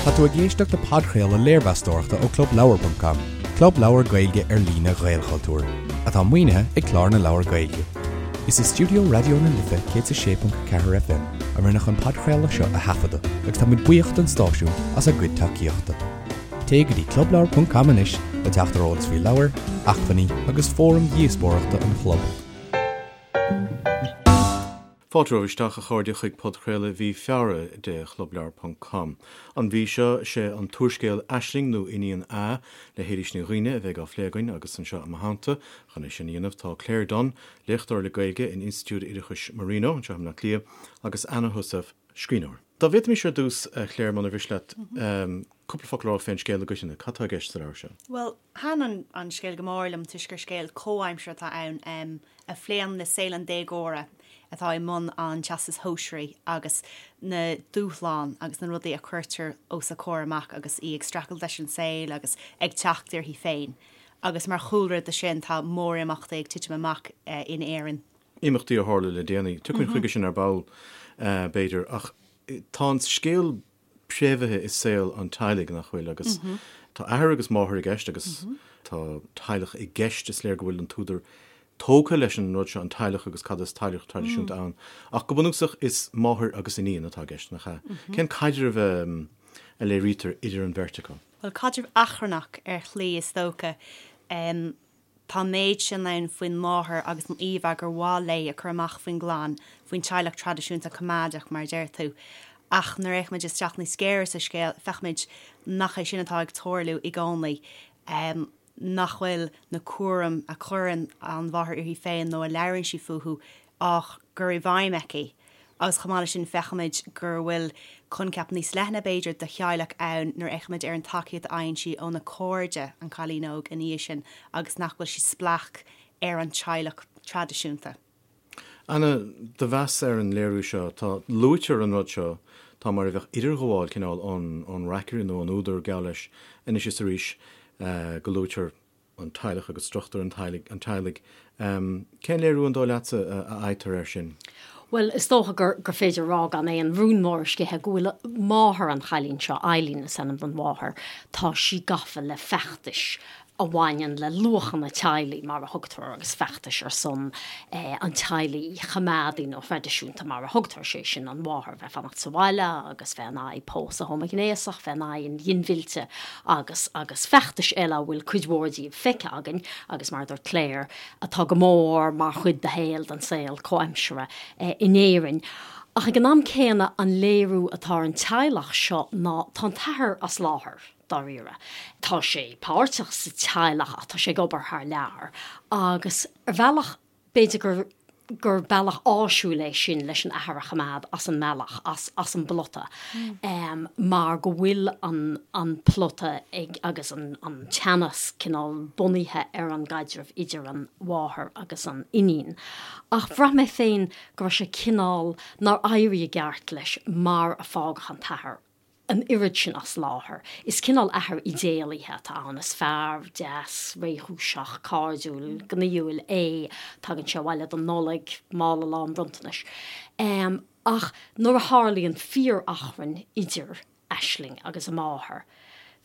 Tá tú ag éisteacht le podchraoladh léirmheastóireachta ó ClubLeabhar.com, club leabhar Gaeilge ar líne Ghaelchultúir, atá maoinithe ag Clár na Leabhar Gaeilge. Is i stiúideo Raidió na Life 106.4 FM a rinneadh an podchraoladh seo a thaifeadadh agus tá muid buíoch don stáisiún as a gcuid tacaíochta. Téigh go dtí clubleabhar.com anois le teacht ar eolas faoi leabhair, acmhainní agus fóraim dhíospóireachta an chlub. Fáilte romhaibh isteach, a chairde, chuig podchraoladh mhí Feabhra de Chlubleabhar ponc com. An mhí seo, sé an t-úrscéal Aisling nó Iníon A le hÉilís Ní Dhuibhne a bheidh á phlé againn agus anseo i mo theannta chun é sin a dhéanamh tá Claire Dunne, léachtóir le Gaeilge in Institiúid Oideachais Marino anseo i mBleá Cliath, agus Anna Heussaff, scríbhneoir. Dá bhféadfaimis ar dtús, a Claire, muna mhiste leat, cúpla focal a rá fén scéal i gcoitinne. Cad tá i gceist sa leabhar seo? Bhuel, Thaitin an scéal go mór liom toisc gur scéal comhaimseartha atá ann a phléann le saol an déagóra atá i mbun an Teastais Shóisearaigh agus na dúshláin agus na rudaí a cuirtear os a comhair amach agus í ag streachailt leis an saol agus ag teacht uirthi féin. Agus mar chúlra do sin tá mórimeachtaí ag titim amach in Éirinn. Imeachtaí a tharla le déanaí. Tiocfaimid chuige sin ar ball, b'fhéidir, ach tá an scéal préamhaithe i saol an teaghlaigh, nach bhfuil? Agus tá athair agus máthair i gceist agus tá teaghlach i gceist, is léir go bhfuil an t-údar tógtha leis an rud seo, an teaghlach agus cad is teaghlach traidisiúnta ann. Ach go bunúsach is máthair agus iníon atá i gceist, nach ea? Cén caidreamh a léirítear idir an bheirt acu? Bhuel, caidreamh achrannach ar shlí is dócha. Tá an méid sin ann faoin máthair agus an íomhá gur mhaith léi a chur amach faoin gclann, faoin teaghlach traidisiúnta coimeádach, mar a deir tú. Ach nuair a fhéachaimid isteach níos géire sa scéal, feicimid nach é sin atá ag tarlú i gcónaí, nach bhfuil na cúraim a chuireann an mháthair uirthi féin nó a labhraíonn sí fúthu á gcur i bhfeidhm aici. Agus chomh maith leis sin feicimid gur bhfuil coincheap níos leithne, b'fhéidir, de theaghlach ann nuair a fhéachaimid ar an tacaíocht a fhaigheann sí óna cairde, an cailín óg, ina dhiaidh sin agus nach bhfuil sí spleách ar an teaghlach traidisiúnta. Anna, do mheas ar an léiriú seo, tá, luaitear an rud seo, tá mar a bheadh idirghabháil cineál ón, ón reacaire nó ón údar, geall leis, anois is arís, go luaitear an teaghlach agus struchtúr an teaghlaigh. Cén léiriú an dóigh leatsa a fhaightear air sin? Bhuel, is dócha gur gur féidir a rá gan aon rún mór a sceitheadh go bhfuil máthair an chailín seo, Eileen is ainm don mháthair, tá sí gafa le feachtais a bhaineann le luachanna teaghlaigh, mar a thugtar, agus feachtais ar son an teaghlaigh choimeádaigh nó thraidisiúnta, mar a thugtar, sé sin an mháthair a bheith ag fanacht sa bhaile agus bheith in aghaidh pósadh homaighnéasach, bheith in aghaidh an ghinmhillte agus agus feachtais eile a bhfuil cuid mhór díobh feicthe againn agus, mar a dúirt Claire, atá go mór mar chuid de shaol, den saol comhaimseartha in Éirinn. Ach ag an am céanna, an léiriú atá ar an teaghlach seo ná tá an t-athair as láthair, dáiríre. Tá sé páirteach sa teaghlach ach tá sé ag obair thar lear agus ar bhealach, B'fhéidir gur gur bealach áisiúil é sin leis an athair a choimeád as an mbealach, as as an bplota, mar go bhfuil an an plota ag agus an an teannas cineál bunaithe ar an gcaidreamh idir an mháthair agus an iníon. Ach bhraith mé féin go raibh sé cineál, nár éirigh i gceart leis mar a fágadh an t-athair. an oiread sin as láthair. Is cineál athair idéalaithe atá ann. Is fear deas, réchúiseach, cairdiúil, gnaíúil é. Tagann sé abhaile don Nollaig, mála lán bronntanais. Ach nuair a tharlaíonn fíor-achrann idir Aisling agus a máthair,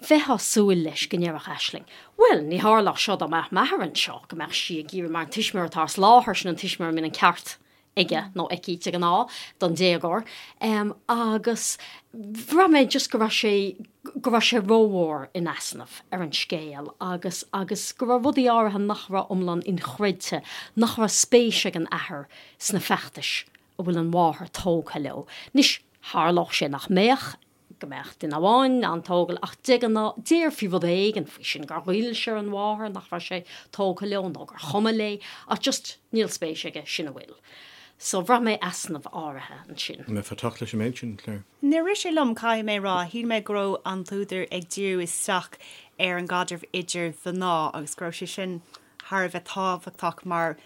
bheifeá ag súil leis go ndéarfadh Aisling, 'Bhuel, ní tharlódh seo dá mbeadh m'athair anseo', go mbeadh sí ag iarraidh, mar an tuismitheoir atá as láthair, sin an tuismitheoir a mbíonn an ceart aige nó aici de ghnáth, don déagóir, agus bhraith mé just go raibh sé, go raibh sé rómhór in easnamh ar an scéal agus, agus go raibh rudaí áirithe nach raibh iomlán inchreidte, nach raibh spéis ag an athair sna feachtais a bhfuil an mháthair tógtha leo. Anois, tharlódh sé nach mbeadh, go mbeadh duine amháin an-tógtha ach de ghnáth déarfaí rud éigin faoi sin, gur ghoill sé ar an mháthair nach raibh sé tógtha leo nó gur chuma léi ach just níl spéis aige, sin a bhfuil. So bhraith mé easnamh áirithe ansin. An mbeifeá ag teacht leis an méid sin, Claire? Níor rith sé liom, caithfidh mé a rá. Shíl mé go raibh an t-údar ag díriú isteach ar an gcaidreamh idir mhná agus go raibh sé sin thar a bheith tábhachtach mar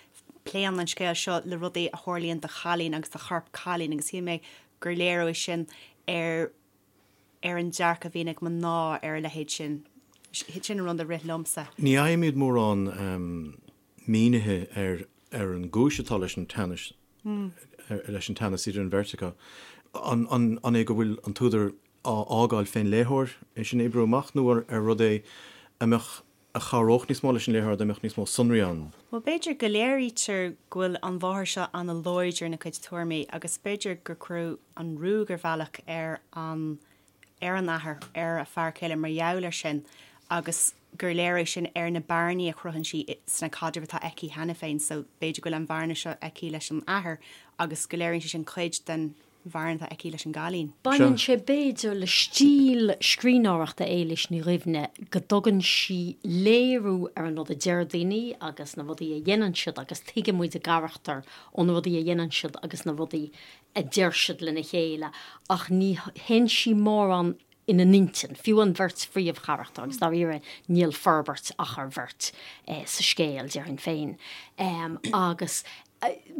pléann an scéal seo le rudaí a tharlaíonn do chailín agus do chorp cailín agus shíl mé gur léiriú é sin ar ar an dearcadh a bhíonn ag mná ar a leithéid sin. Sin an rud a rith liomsa. Ní fhaighimid mórán mínithe ar ar an gcúis atá leis an teannas leis an teannas idir an bheirt acu. An an é go bhfuil an t-údar. á fhágáil fén léitheoir é sin a oibriú amach nó ar rud é a mbeadh, a chabhródh níos mó leis an léitheoir dá mbeadh níos mó sonraí ann? Bhuel, b'fhéidir go léirítear go bhfuil an mháthair seo ana-láidir ina cuid tuairimí agus b'fhéidir gur cuireadh an ruaig ar bhealach ar an ar an athair, ar a fear céile mar gheall air sin agus gur léir é sin ar na bearnaí a chruthaíonn sí sna caidrimh atá aici cheana féin so b'fhéidir go bhfuil an bhearna seo aici leis an athair agus go léiríonn sé sin cuid den bhearna atá aici leis an gcailín. Baineann sé b'fhéidir le stíl scríbhneoireachta Éilís Ní Dhuibhne go dtugann sí léiriú ar an rud a deir daoine agus na rudaí a dhéanann siad agus tuigeann muid a gcarachtair ó na rudaí a dhéanann siad agus na rudaí a deir siad lena chéile ach ní théann sí mórán ina n-intinn, fiú an bheirt phríomhcharachtar, agus dáiríre níl forbairt ach ar bheirt sa scéal, déarfainn féin. Agus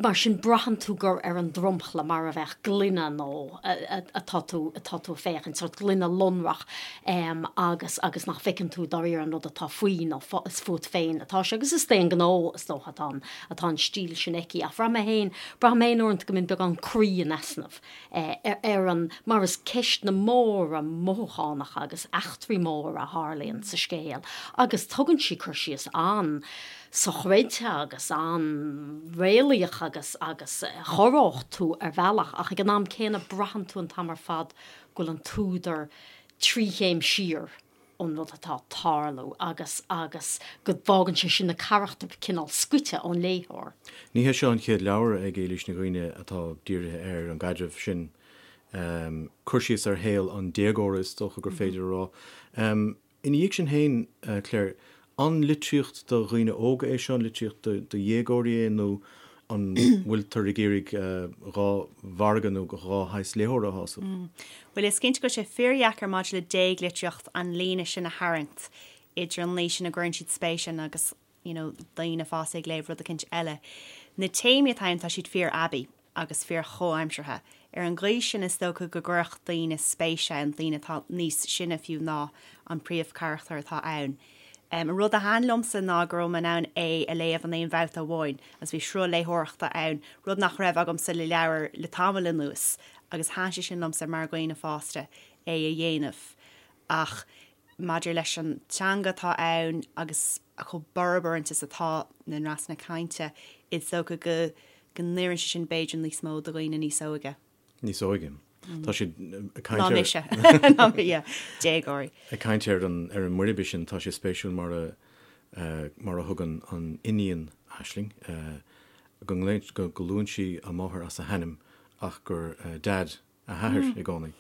mar sin braitheann tú gur ar an dromchla, mar a bheadh gloine nó atá tú atá tú ag féachaint, sórt gloine lonrach agus agus nach bhfeiceann tú dáiríre an rud atá faoi nó is fút féin atá sé. Agus is d'aon ghnó, is dócha, atá an atá an stíl sin aici. Ach bhraith mé féin, braithim féin uaireanta go mbíonn beagán croí in easnamh ar an, mar is ceisteanna móra mothúchánacha agus eachtraí móra a tharlaíonn sa scéal agus tugann sí cur síos an-sochreidte agus an-réalaíoch agus agus a chorródh tú ar bhealach ach ag an am céanna braitheann tú an t-am ar fad go bhfuil an t-údar trí chéim siar ón rud atá ag tarlú agus agus go bhfágann sé sin na carachtair cineál scoite ón léitheoir. Ní hé seo an chéad leabhar ag Éilís Ní Dhuibhne atá dírithe ar an gcaidreamh sin, cur síos ar shaol an déagóra is dócha gur féidir a rá. Ina dhiaidh sin féin, Claire, an litríocht do dhaoine óga é seo, an litríocht do dhéagóirí é nó an bhfuiltear ag iarraidh dhá mhargadh nó dhá shaghas léitheora a shásamh? Bhuel, is cinnte go bhfuil sé fíordheacair maidir le déaglitríocht an líne sin a tharraingt idir an aois ina gcuireann siad spéis ann agus, you know, daoine fásta ag léamh rud eicínt eile. Na téamaí atá ann, tá siad fíor-aibí agus fíor-chomhaimseartha. Ar an gcaoi sin, is dócha go gcuirfeadh daoine spéis ann, daoine atá níos sine fiú ná an príomhcharachtar atá ann. An rud a thaitin liomsa ná go raibh mé in ann é a léamh in aon bhabhta amháin agus bhí sruth léitheoireachta ann, rud nach raibh agamsa le leabhar le tamall anuas agus thaitin sé sin liomsa mar dhaoine fásta é a dhéanamh. Ach maidir leis an teanga atá ann agus chomh borb uaireanta is atá na ndreasanna cainte, is dócha go go n-oireann sé sin b'fhéidir níos mó do dhaoine níos óige. Níos óige. Tá siad ag caint ar. Ná mise. Ná mé, yeah. Déagóirí. Ag caint ar an ar an mboirbe sin, tá sé spéisiúil mar a mar a thugann an iníon Aisling go nglaonn go luann sí a máthair as a hainm ach gur Dad a hathair i gcónaí.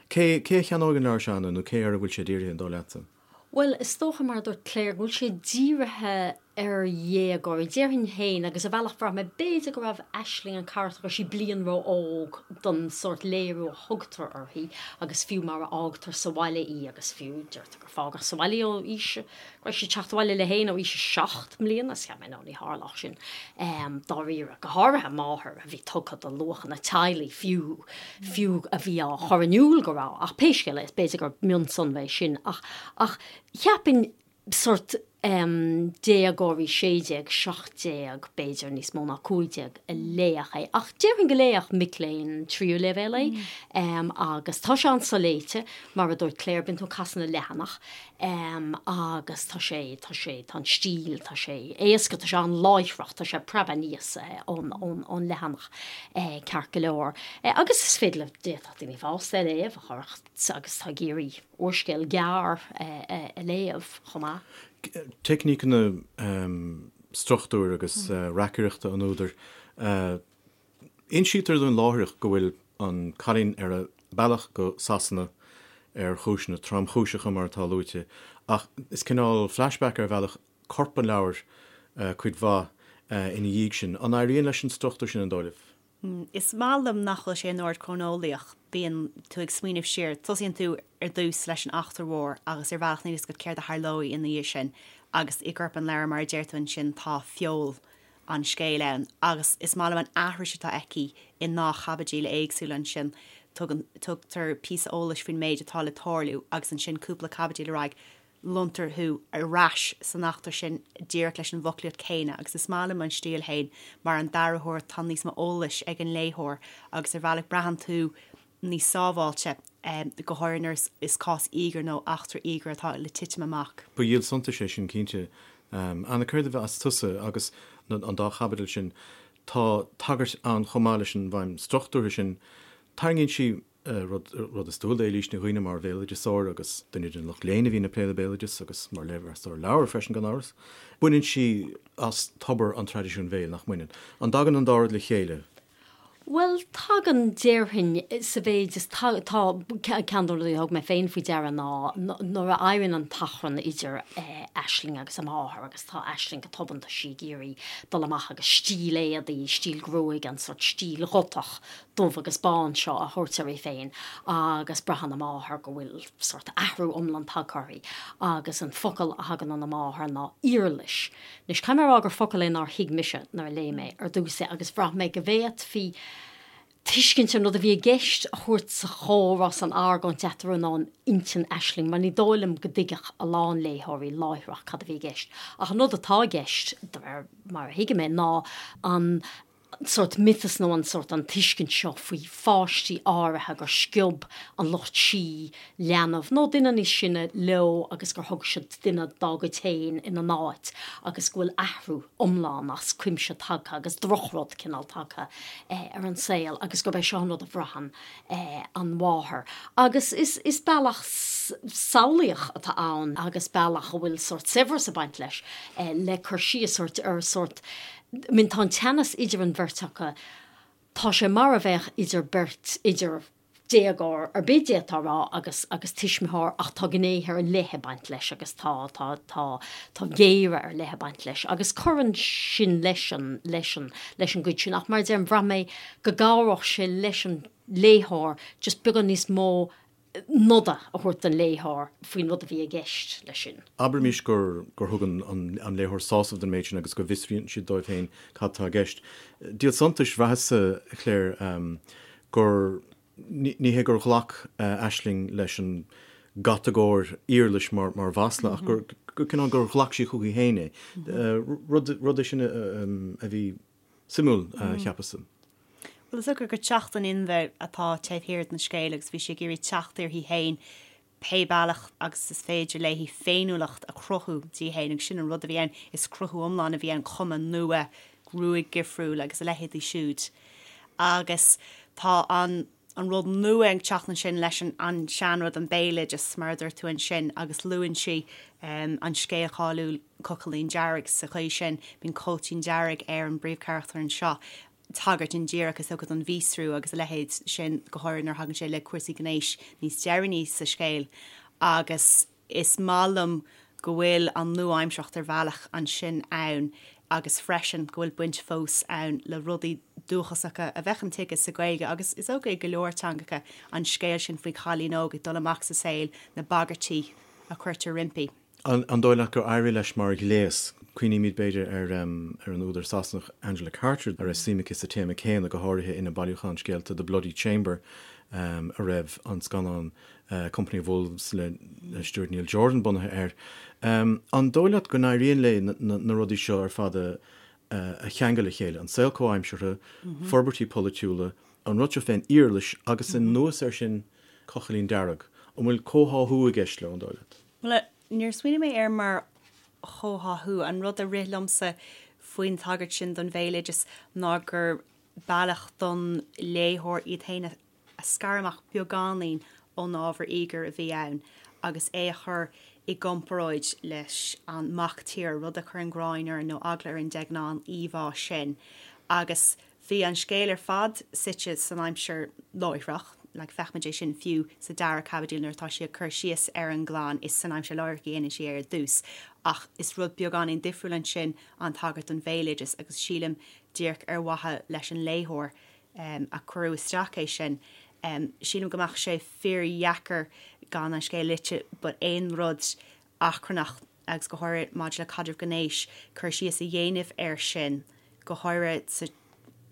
Cé cé a cheannóidh an leabhar seo, Anna, nó cé air a bhfuil sé dírithe, an dóigh leatsa? Bhuel, is dócha, mar a dúirt Claire, go bhfuil sé dírithe ar dhéagóirí. Déarfainn féin, agus ar bhealach bhraith mé, b'fhéidir go raibh Aisling, an carachtar, go raibh sí bliain ró-óg don sórt léiriú a thugtar uirthi agus fiú mar a fhágtar sa bhaile í agus fiú, deirtear gur fágadh sa bhaile í ó aois, go raibh sí ag teacht abhaile léi féin ó aois a 7 mbliana, is cheap mé, no, ní tharlódh sin, dáiríre, go háirithe máthair a bhí tugtha do luachanna teaghlaigh fiú, fiú a bhí á chur in iúl go raibh, ach pé scéal é, is b'fhéidir gur mionsonra é sin, ach, ach cheapfainn sórt déagóirí 16, 17, b'fhéidir níos mó ná 15 a léifeadh é, ach déarfainn go léifeadh mic léinn tríú leibhéal é, agus tá sé an-soléite, mar a dúirt Claire, bíonn tú ag casadh na leathanach. Agus tá sé, tá sé, tá an stíl, tá sé éasca, tá sé an-láithreach, tá sé ag preabadh aníos ón, ón, ón leathanach ceart go leor. Agus is féidir le, d'fhéadfadh daoine fásta é a léamh a chuirfeadh, agus atá ag iarraidh úrscéal gearr a léamh chomh maith. Teicníceanna struchtúir agus reacaireachta an údair. Insítear dúinn láithreach go bhfuil an cailín ar a bealach go Sasana ar chúiseanna tromchúiseacha, mar atá luaite, ach is cineál flashback ar bhealach corp an leabhair cuid mhaith ina dhiaidh sin. An éiríonn leis an struchtúr sin, an dóigh libh? Is maith liom nach bhfuil sé in ord cróineolaíoch. Bíonn tú ag smaoineamh siar. Tosaíonn tú ar dtús leis an eachtra mhór agus ar bhealach níl a fhios agat céard a tharlóidh ina dhiaidh sin agus i gcorp an leabhair, mar a deir tú ansin, tá feol an scéil ann agus is maith liom an aithris atá aici i ndá chaibidil éagsúla ansin. Tugann, tugtar píosa eolais faoin méid atá le tarlú agus ansin cúpla caibidil ar aghaidh lonntar thú ar ais san eachtra sin díreach leis an bhfoclaíocht chéanna agus is maith liom an stíl fhéin mar an dara huair tá níos mó eolais ag an léitheoir agus ar bhealach braitheann tú níos sábháilte. Go háirithe nuair is cás íogair nó eachtra íogair atá le titim amach. Ba dhíol suntais é sin cinnte. Anna, céard a mheas tusa agus an dá chaibidil sin, tá tagairt ann chomh maith leis an bhfeidhm struchtúrtha sin, tarraingíonn sí rud, rud is dual d'Éilís Ní Dhuibhne mar bhéaloideasóir agus duine den lucht léinn a bhíonn ag plé le béaloideas agus mar léirmheastóir leabhar freisin gan amhras. Baineann sí as tobar an traidisiúin bhéil, nach mbaineann? An dtagann an dá rud le chéile? Bhuel, tagann, déarfainn, sa mhéid is tá, ceann de na rudaí a thug mé féin faoi deara ná nuair a éiríonn an t-achrann idir Aisling agus a máthair agus tá Aisling go tobann, tá sí ag iarraidh dul amach agus stíl éadaí, stíl gruaige, an sórt stíl ghotach dubh agus bán seo a thabhairt uirthi féin agus braitheann a máthair go bhfuil sórt athrú iomlán tagtha uirthi agus an focal a thagann óna máthair ná iarlais. Anois, caithfidh mé a rá gur focal é nár thuig mise nuair a léigh mé ar dtús é agus bhraith mé go bhféadfaí tuiscint ar an rud a bhí i gceist a thabhairt sa chomhrá, san argóint eatarthu nó in intinn Aisling mar ní dóigh liom go dtuigfeadh a lán léitheoirí láithreach cad a bhí i gceist. Ach an rud atá i gceist, de réir mar a thuigim é, ná an sórt miotas nó an sórt an tuiscint seo faoi pháistí áirithe gur sciob an lucht sí leanbh nó duine níos sine leo agus gur thug siad duine dá gcuid féin ina n-áit agus go bhfuil athrú iomlán as cuimse tagtha agus drochrud cineál tagtha ar an saol agus gurb é seo an rud a bhraitheann an mháthair. Agus is is bealach samhlaíoch atá ann agus bealach a bhfuil sórt saibhreas ag baint leis le cur síos ar sórt I mean tá an teannas idir an bheirt acu, tá sé mar a bheadh idir beirt, idir déagóir ar bith d'fhéadfá a rá agus, agus tuismitheoir ach tá gnéithe ar leith ag baint leis agus tá, tá, tá, tá géire ar leith ag baint leis agus cuireann sin leis an, leis an, leis an gcuid sin ach mar a deirim, bhraith mé go gcabhródh sé leis an léitheoir just beagán níos mó noda a thabhairt don léitheoir faoin rud a bhí i gceist leis sin. Abraimis gur gur thug an an léitheoir sásamh don méid sin agus go bhfiosraíonn siad dóibh féin cad tá i gceist. Díol suntais, bhraitheas-sa, a Claire, gur, ní hé gur ghlac Aisling leis an gcatagóir iarlais mar mar mhasla ach gur gur cineál gur ghlac sí chuici féin é. Rud rud é sin a bhí Suimiúil, cheapas-sa. Bhuel, is dócha gur teacht in inmhe atá taobh thiar den scéal agus bhí sí ag iarraidh teacht uirthi féin pé bealach agus is féidir léi féiniúlacht a chruthú di féin agus sin an rud a bhí ann, is cruthú iomlán a bhí ann, cuma nua, gruaig dhifriúil agus a leithéidí siúd. Agus tá an an rud nua ag teacht ansin leis an seanrud, an béaloideas, mar a dúirt tú ansin, agus luann sí an scéal cáiliúil Cochaillín Dearg sa chaoi sin. Bíonn cóitín dearg ar an bpríomhcharachtar anseo, tagairt indíreach is dócha don mhíostrú agus a leithéid sin, go háirithe nuair a thagann sé le cúrsaí gnéis níos deireanaí sa scéal. Agus. Is maith liom go bhfuil an nua-aimsearthacht ar bhealach ansin ann agus freisin go bhfuil baint fós ann le rudaí dúchasacha a bheadh intuigthe sa Ghaeilge agus is dócha i go leor teangacha, an scéal sin faoi chailín óg ag dul amach sa saol, na bagairtí a chuirtear roimpi. An dóigh leat gur éirigh leis mar ghléas? Cuimhnímid, b'fhéidir, ar ar an údar Sasanach Angela Carter, a raibh suim aici sa téama céanna, go háirithe ina bailiúchán scéalta The Bloody Chamber, a raibh an scannán Company of Wolves le Stuart Neil Jordan bunaithe air. An dóigh leat go n-éiríonn léi na rudaí seo ar fad a cheangal le chéile, an saol comhaimseartha, forbairtí polaitiúla, an rud seo fén iarlais agus anuas air sin Cochaillín Dearg? An bhfuil comhtháthú i gceist leo, an dóigh leat? Bhuel, níor smaoinigh mé air mar chomhtháthú. An rud a rith liomsa faoin tagairt sin don bhéaloideas ná gur bealach don léitheoir iad féin a a scaradh amach beagáinín ón ábhar íogair a bhí ann agus é a chur i gcomparáid leis an mac tíre, rud a chuireann gráin orainn nó eagla orainn de ghnáth, an íomhá sin. Agus bhí an scéal ar fad suite san aimsir láithreach, like feicimid é sin fiú sa dara caibidil nuair atá sí ag cur síos ar an gclann, is san aimsir láithreach a dhéanann sí é ar dtús. Ach is rud beagáinín difriúil ansin an tagairt don bhéaloideas agus sílim díreach ar mhaithe leis an léitheoir a cuireadh isteach é sin. Sílim go mbeadh sé fíordheacair gan an scéal léite but aon rud achrannach agus go háirithe maidir le caidreamh gnéis, cur síos a dhéanamh air sin, go háirithe sa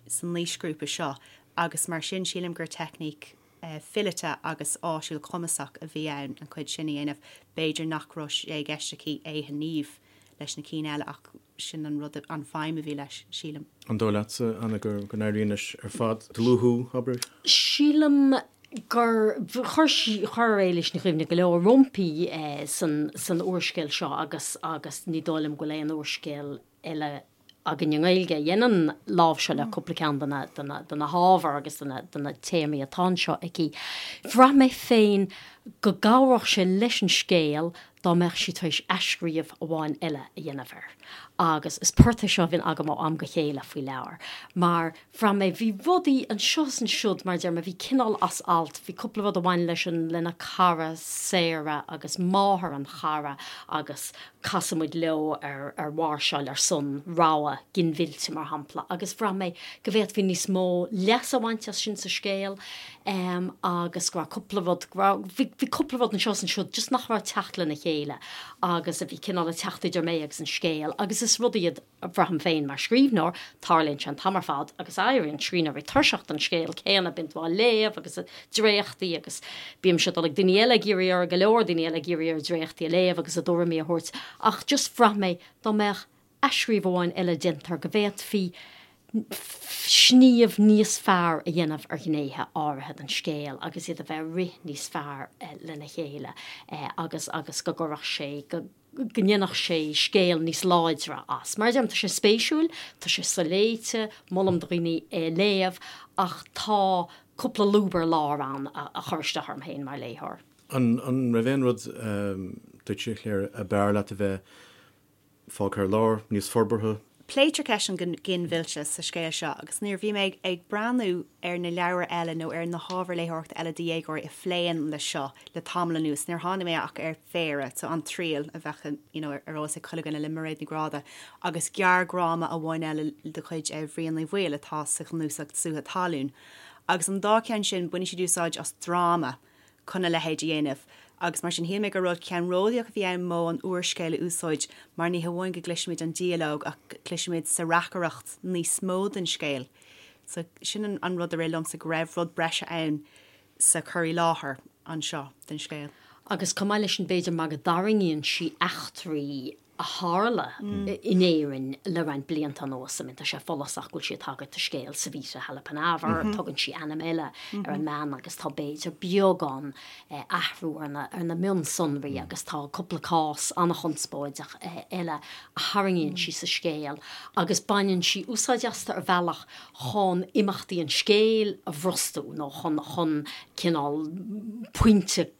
san aoisghrúpa seo agus mar sin sílim gur teicníc fileata agus áisiúil cumasach a bhí ann an chuid sin a dhéanamh. B'fhéidir nach raibh sé i gceist aici é a shníomh leis na cinn eile ach sin an rud, an feidhm a bhí leis, sílim. An dóigh leatsa, Anna, go n-éiríonn leis ar fad? Dlúthú, abair? Sílim. Gur chuir sí, chuir Éilís Ní Dhuibhne go leor roimpi san, san úrscéal seo agus, agus ní dóigh liom go bhfuil aon úrscéal eile againn i nGaeilge a dhéanann láimhseáil ar cúpla ceann de na, de na, de na hábhair agus de na, de na téamaí atá anseo aici. Bhraith mé féin go gcabhródh sé leis an scéal dá mbeadh sí tar éis athscríobh amháin eile a dhéanamh air. Agus is port é seo a bhíonn agam ó am go chéile faoi leabhair, mar bhraith mé, bhí rudaí anseo is ansiúd, mar a deir mé, bhí cineál as alt, bhí cúpla rud a bhain leis an, lena cara Sarah agus máthair an chara agus casann muid leo ar, ar mháirseáil ar son rogha ginmhillte, mar shampla, agus bhraith mé go bhféadfaí níos mó leas a bhaint as sin sa scéal em agus go raibh cúpla rud, go raibh, bhí, bhí cúpla rud anseo is ansiúd just nach raibh ag teacht lena chéile agus a bhí cineál ag teacht idir mé agus an scéal agus is rud iad a bhraithim féin mar scríbhneoir, tarlaíonn sé an t-am ar fad agus éiríonn scríbhneoirí tuirseach den scéal céanna, bíonn tú á léamh agus dréachtaí agus bímse ag dul ag daoine eile ag iarraidh orthu, go leor daoine eile ag iarraidh orthu dréachtaí a léamh agus a dtuairimí a thabhairt ach just bhraith mé dá mbeadh athscríobh amháin eile déanta air go bhféadfaí sníomh níos fearr a dhéanamh ar ghnéithe áirithe den scéal agus iad a bheith ag rith níos fearr lena chéile agus agus go gcuirfeadh sé go go ndéanfadh sé scéal níos láidre as. Mar a deirim, tá sé spéisiúil, tá sé soléite, molaim do dhaoine é a léamh, ach tá cúpla lúb ar lár ann a chuir isteach orm féin mar léitheoir. An raibh aon rud duitse, a Chléire, ab fhearr leat a bheith fágtha ar lár, níos forbartha? Pléitear ceist an ghinmhillte sa scéal seo agus nuair a bhí mé ag breathnú ar na leabhair eile nó ar na hábhair léitheoireachta eile do dhéagóirí a phléann leis seo le tamall anuas, níor tháinig mé ach ar phéire, so An Triail a bheadh you know ar eolas ag chuile dhuine le Mairéad Ní Ghráda agus gearrdhráma amháin eile de chuid Bhriain Uí Bhaoill atá sa chnuasach Sútha Talún. Agus an dá cheann sin, baineann siad úsáid as dráma chun a leithéid a dhéanamh, agus mar sin shíl mé gur rud ceannródaíoch a bhí ann modh an úrscéil a úsáid mar ní hamháin go gcloisimid an dialóg ach cloisimid sa reacaireacht níos mó den scéal. So sin an rud a rith liomsa, go raibh rud breise ann sa chur i láthair anseo den scéal. Agus chomh maith leis sin b'fhéidir mar go dtarraingíonn sí eachtraí a tharla in Éirinn le roinnt blianta anuas. I mean, tá sé follasach go bhfuil sí ag tagairt do scéal Savita Halappanavar, tugann sí ainm eile ar an mbean agus tá b'fhéidir beagán athrú ar na, ar na mionsonraí agus tá cúpla cás an-chonspóideach eile a tharraingíonn sí sa scéal agus baineann sí úsáid astu ar bhealach chun imeachtaí an scéil a bhrostú nó chun, chun cineál pointe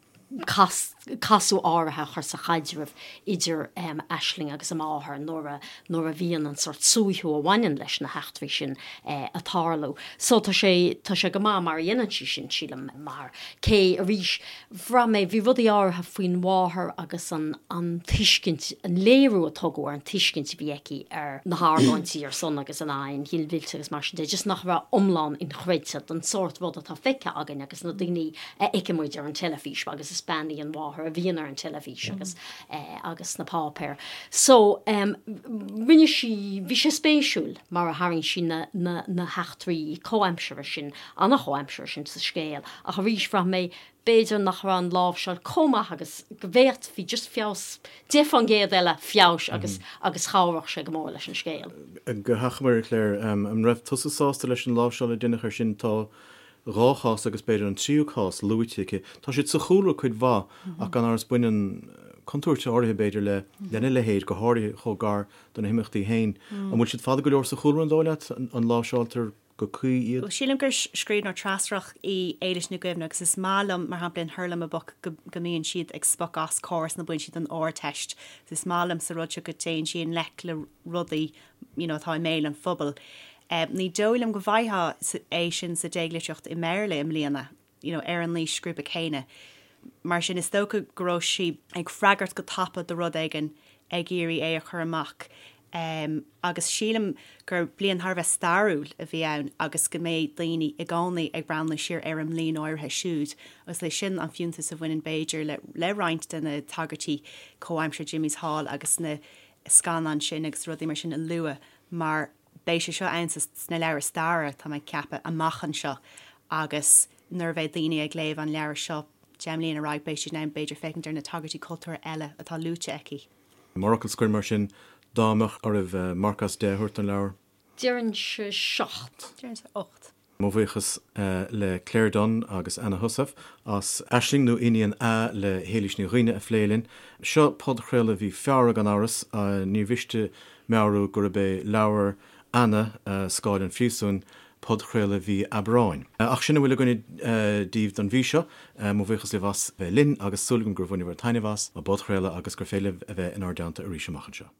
casadh áirithe a chur sa chaidreamh idir Aisling agus a máthair nuair a nuair a bhíonn an sórt suaitheadh a bhaineann leis na heachtraí sin ag tarlú. So tá sé tá sé go maith mar a dhéanann sí sin, sílim, mar cé arís bhraith mé bhí rudaí áirithe faoin mháthair agus an an tuiscint an léiriú a tugadh ar an tuiscint a bhí aici ar na hargóintí ar son agus in aghaidh an ghinmhillte agus mar sin de just nach raibh iomlán inchreidte don sórt rud atá feicthe againn agus na daoine a fheiceann muid ar an teilifís agus is bean í an mháthair a bhíonn ar an teilifís agus agus sna páipéir. So rinne sí, bhí sé spéisiúil mar a tharraing sí na na na heachtraí comhaimseartha sin, an-chomhaimseartha sin sa scéal ach arís bhraith mé b'fhéidir nach raibh an láimhseáil chomh maith agus go bhféadfaí just feabhas, 10% eile feabhais agus agus chabhródh sé go mór leis an scéal. Go hachomair, a Claire, an raibh tusa sásta leis an láimhseáil a deineadh air sin? Tá 2 chás agus b'fhéidir an tríú cás luaite aici. Tá siad sa chúlra cuid mhaith ach gan amhras baineann contúirt áirithe b'fhéidir le lena leithéid, go háirithe chomh gar do na himeachtaí féin. An bhfuil siad fada go leor sa chúlra, an dóigh leat? An láimhseáiltear go cuí iad? Bhuel, sílim gur scríbhneoir treascrach í Éilís Ní Dhuibhne agus is maith liom, mar shampla, in Hurlamaboc go mbíonn siad ag spochadh as córas nó bíonn siad don Ardteist. Is maith liom sa rud seo go dtéann sí i ngleic le rudaí you know, atá i mbéal an phobail. Ní dóigh liom go bhfaighfeá é sin sa déaglitríocht i mBéarla i mbliana, you know, ar an aoisghrúpa céanna. Mar sin, is dócha go raibh sí ag freagairt go tapa do rud éigin, ag iarraidh é a chur amach. Agus sílim gur bliain thar a bheith stairiúil a bhí ann agus go mbeidh daoine i gcónaí ag breathnú siar ar an mbliain áirithe siúd agus leis sin an fiúntas a bhaineann b'fhéidir le le roinnt de na tagairtí comhaimseartha Jimmy's Hall agus na scannáin sin agus rudaí mar sin a lua mar beidh sé seo ann sna leabhair staire, tá mé ag ceapadh, amach anseo agus nuair a bheidh daoine ag léamh an leabhair seo 10 mbliana ar aghaidh beidh siad in ann b'fhéidir féachaint ar na tagairtí cultúrtha eile atá luaite aici. Mar fhocal scoir mar sin, dá mbeadh oraibh marc as 10 a thabhairt don leabhar? Déarfainnse 7. Déarfainnse 8. Mo bhuíochas le Claire Dunne agus Anna Heussaff as Aisling nó Iníon A le hÉilís Ní Dhuibhne a phlé linn. Seo podchraoladh mhí Feabhra gan amhras. Ní mhiste meabhrú gurb é leabhar Anna, Scáil an Phríosúin, podchraoladh mhí Aibreáin. Ach sin a bhfuil againne daoibh don mhí seo. Mo bhuíochas libh as bheith linn agus súil agam gur bhaineabhair taitneamh as an bpodchraoladh agus gur féidir libh a bheith inár dteannta arís amach anseo.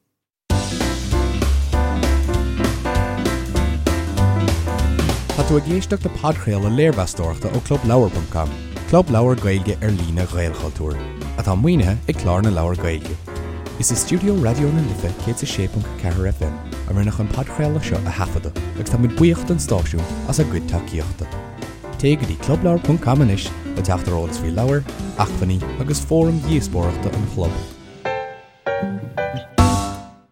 Tá tú ag éisteacht le podchraoladh léirmheastóireachta ó ClubLeabhar.com, club leabhar Gaeilge ar líne Ghaelchultúir, atá maoinithe ag Clár na Leabhar Gaeilge. Is i stiúideo Raidió na Life 106.4 FM a rinneadh an podchraoladh seo a thaifeadadh agus tá muid buíoch don stáisiún as a gcuid tacaíochta. Téigh go dtí clubleabhar.com anois le teacht ar eolas faoi leabhair, acmhainní agus fóraim dhíospóireachta an chlub.